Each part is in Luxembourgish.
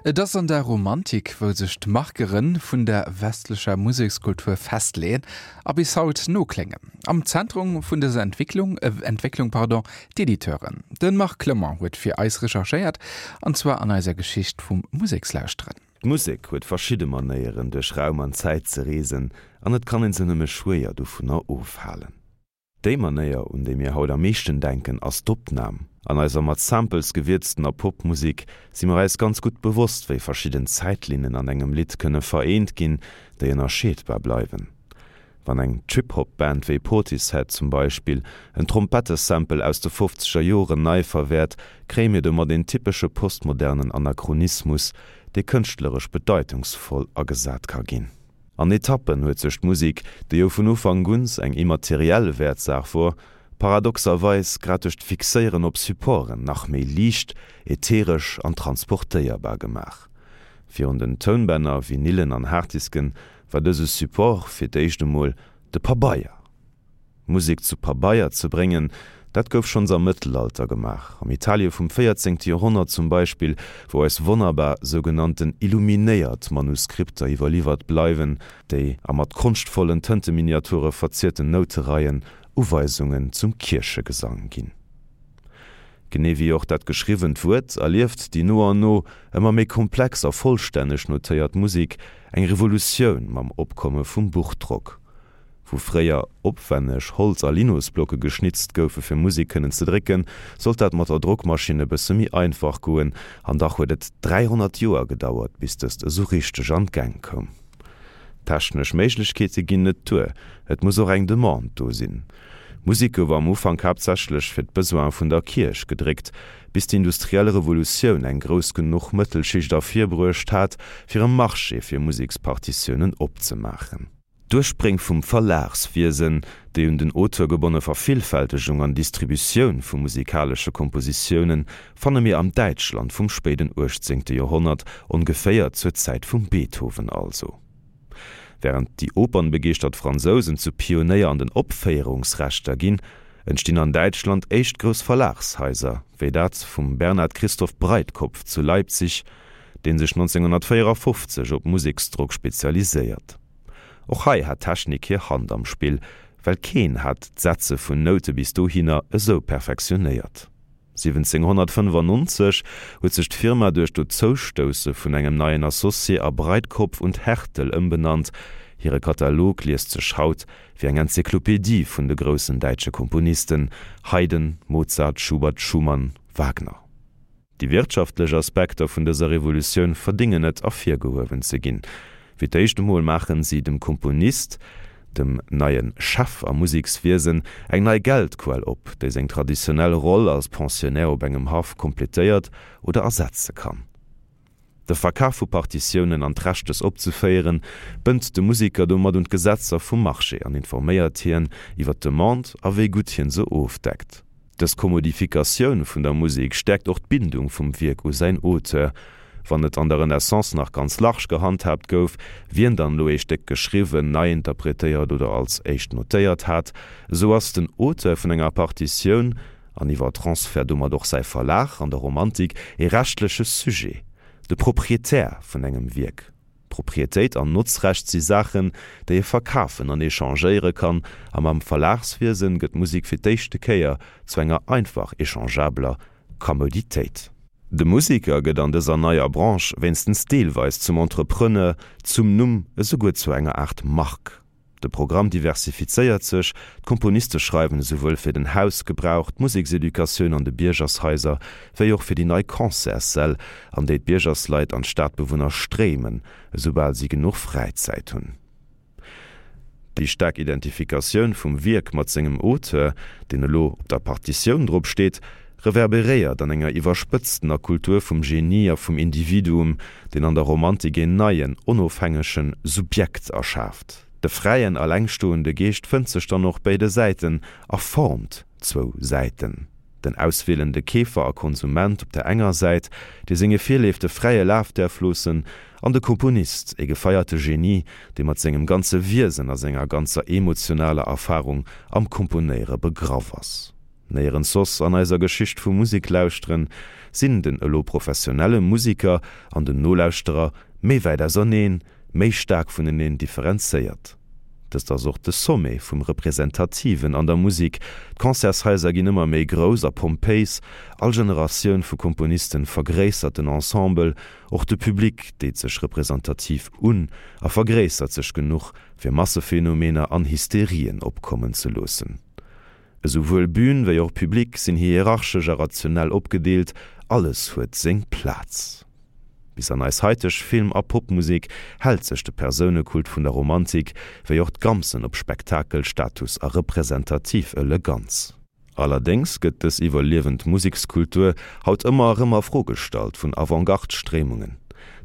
Et ass an der Romantik, wou sech d'Markere vun der westlecher Musekskultur festleeën a bis haut nokléngen. Am Zentrum vun dëser Entwicklung, Entwécklung, pardon, d'Editeuren. De Marc Clement huet fir eis recherchéiert, an zwar an eiser Geschicht vum Musekslauschteren. D'Musek huet verschidde Manéieren, duerch Raum an Zäit ze reesen, an et kann een se nëmme schwéier dovunner ofhalen. Déi Manéier, un déi mir haut am meeschten denken, ass d'Opnam. An eiser mat Samples gewierztener Popmusek si mer eis ganz gutt bewosst, wéi verschidden Zäitlinnen an engem Lidd kënne vereent ginn, déi ënnerscheedbar bleiwen. Wann eng Trip-Hop-Band wéi Portishead zum Beispill en Trompettesample aus de fofzeger Joren nei verwäert, kréie mir domat een typesche postmodernen Anachronismus, dee kënschtleresch bedeitungsvoll agesat ka ginn. An Etappen huet sech d'Musek, déi jo vun Ufank uns eng immateriell Wäertsaach wor, paradoxerweis grad duerch d'Fixéieren op Supporten nach méi liicht, ätheresch an transportéierbar gemaach. Virun den Tounbänner, Vinylen an Harddisken war dëse Support fir d'éischt emol de Pabeier. Musek zu Pabeier ze bréngen, dat gouf schonns am Mëttelalter gemaach, am Italie vum 14. Joerhonnert zum Beispill, wou eis wonnerbar sougenannten illuminéiert Manuskripter iwwerliwwert bleiwen, déi a mat konschtvollen Tënteminiature verzierten Noutereien Uweisungen zum Kierchegesang ginn. Genee wéi och dat geschriwwent Wuert erlieft déi no an no ëmmer méi komplex a vollstänneg notéiert Musek eng Revolutioun mam Opkomme vum Buchdrock. Wou fréier opwänneg Holz a Linosblocke geschnitzt goufe fir Musek kënnen ze drécken, sollt dat mat der Drockmaschinn e bësse méi einfach goen. An dach huet et 300 Joer gedauert, bis dëst esou richteg an d'Gäng koum. Technesch Méiglechkeete ginn net duer, et muss och eng Demande do sinn. Musek gouf am Ufank haaptsächlech fir d'Besoine vun der Kierch gedréckt, bis d'industriell Revolutioun eng grouss genuch Mëttelschicht ervirbruecht hat, fir e Marché fir Musekspartitiounen opzemaachen. D'Urspréng vum Verlagswiesen, déi un den Auteur gebonne Vervillfältegung an Distributioun vu musikalesche Kompositiounen, fanne mir am Däitschland vum spéiden uechtzéngte Joerhonnert, ongeféier zur Zäit vum Beethoven also. Wärend déi opernbegeeschtert Fransousen zu Pionéier an den Opféierungsrechter ginn, entstinn an Däitschland éischt grouss Verlagshaiser, wéi dat vum Bernhard Christoph Breitkopf zu Leipzig, dee sech 1954 op Museksdrock spezialiséiert. Och hei hat d'Technik hir Hand am Spill, well keen hat d'Setze vun Noute bis dohinner esou perfektionéiert. 1795 huet sech d'Firma duerch d'Dozoustousse vun engem neien Associé a Breitkopf und Härtel ëmbenannt. Hire Katalog liest sech haut wéi eng Enzyklopedie vun de groussen däitsche Komponisten, Haydn, Mozart, Schubert, Schumann, Wagner. Déi wirtschaftlech Aspekter vun dëser Revolutioun verdéngen et, ervirgehuewen ze ginn. Fir d'éischt emol maachen si dem Komponist, dem neie Chef am Musekswiesen, eng nei Geldquell op, déi seng traditionell Roll als Pensionnaire op engem Haff kompletéiert oder ersetze kann. De Verkaf vu Partitiounen an d'Recht dës opzeféieren, bënnt de Museker domat un d'Gesetzer vum Marché an informéiert hien iwwer d'Demande a wéi gutt hien se ofdeckt. Dës Kommodifikatioun vun der Musek stäerkt och d'Bindung vum Wierk u säin Auteur. Wann et an der Renaissance nach ganz large gehandhaabt gouf, wien dann elo ee Stéck geschriwwen, nei interpretéiert oder als éischt notéiert hat, esou ass den Auteur vun enger Partitioun, an iwwer Transfert domat och säi Verlag, an der Romantik ee rechtleche Sujet, de Proprietär vun engem Wierk. Proprietéit an Notzrecht si Saachen, déi ee verkafen an echangéiere kann, a mam Verlagswiesen gëtt d'Musek fir d'éischte Kéier zu enger einfach echangeabeler Commoditéit. De Museker gëtt an dëser neier Branche wéinstens deelweis zum Entrepreneur, zum Numm, esouguer zu enger Aart Mark. De Programm diversifizéiert sech, d'Komponiste schreiwen esouwuel fir den Hausgebrauch, d'Musekseducatioun an de Biergershaiser, wéi och fir déi nei Concertssäll, an déi d'Biergersleit an d'Stadbewunner stréimen, esoubal si genuch Fräizäit hunn. Déi staark Identifikatioun vum Wierk mat sengem Auteur, deen elo op der Partitioun drop steet, reverberéiert an enger iwwerspëtztener Kultur vum Genie a vum Individuum, deen an der Romantik een neien, onofhängege Subjekt erschaaft. De fräien, allengstoende Geescht fënnt sech dann och béide Säiten a formt zwou Säiten, den auswielende Keefer a Konsument op der enger Säit, dee senge Virleefte fräie Laf däerf loossen, an de Komponist, e gefeierte Genie, dee mat sengem ganze Wiesen a senger ganzer emotionaler Erfarung am Komponéiere begraff ass. Néierens soss an eiser Geschicht vum Museklauschteren sinn den elo professionelle Musiker an den Nolauschterer méi wäit auserneen, méi staark vuneneen differenzéiert. Dëst ass och de Sommet vum Representativen an der Musik, d'Concertshaiser ginn ëmmer méi grouss a pompéis, all Generatioun vu Komponisten vergréissert den Ensemble, och de Public deet sech representativ un a vergréissert sech genuch, fir Massephenomener an Hysterien opkommen ze loossen. Esouwuel Bühn wéi och Public sinn hierarchesch a rationell opgedeelt, alles huet seng Plaz. Bis an eis haiteg Film a Popmusek hält sech de Persounekult vun der Romantik, wéi och d'Gamsen op Spektakel, Status a representativ Eleganz. Allerdéngs gëtt dës iwwerliewend Musekskultur haut ëmmer erëm a Fro gestallt vun Avantgarde-Stréimungen,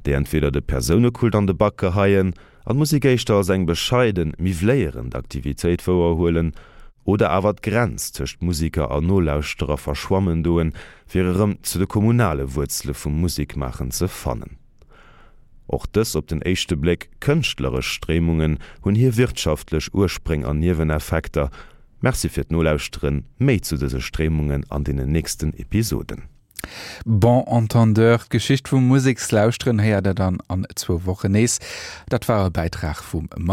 déi entweder de Persounekult an de Bak geheien an d'Musek éischter als eng bescheiden, miwwléierend Aktivitéit wouerhuelen, oder awer d'Grenz tëscht Musiker a Nolauschterer verschwammen doen, fir erëm zu de kommunale Wuerzele vum Musekmaachen ze fannen. Och dës op den éischte Bléck kënschtleresch Stréimungen hunn hir wirtschaftlech Urspréng an Nieweneffekter. Merci fir d'Nolauschteren, méi zu dëse Stréimungen an deenen nächsten Episoden. Bon entendeur, d'Geschicht vum Musekslauschteren héiert der dann an zwou Wochen nees. Dat war e Bäitrag vum.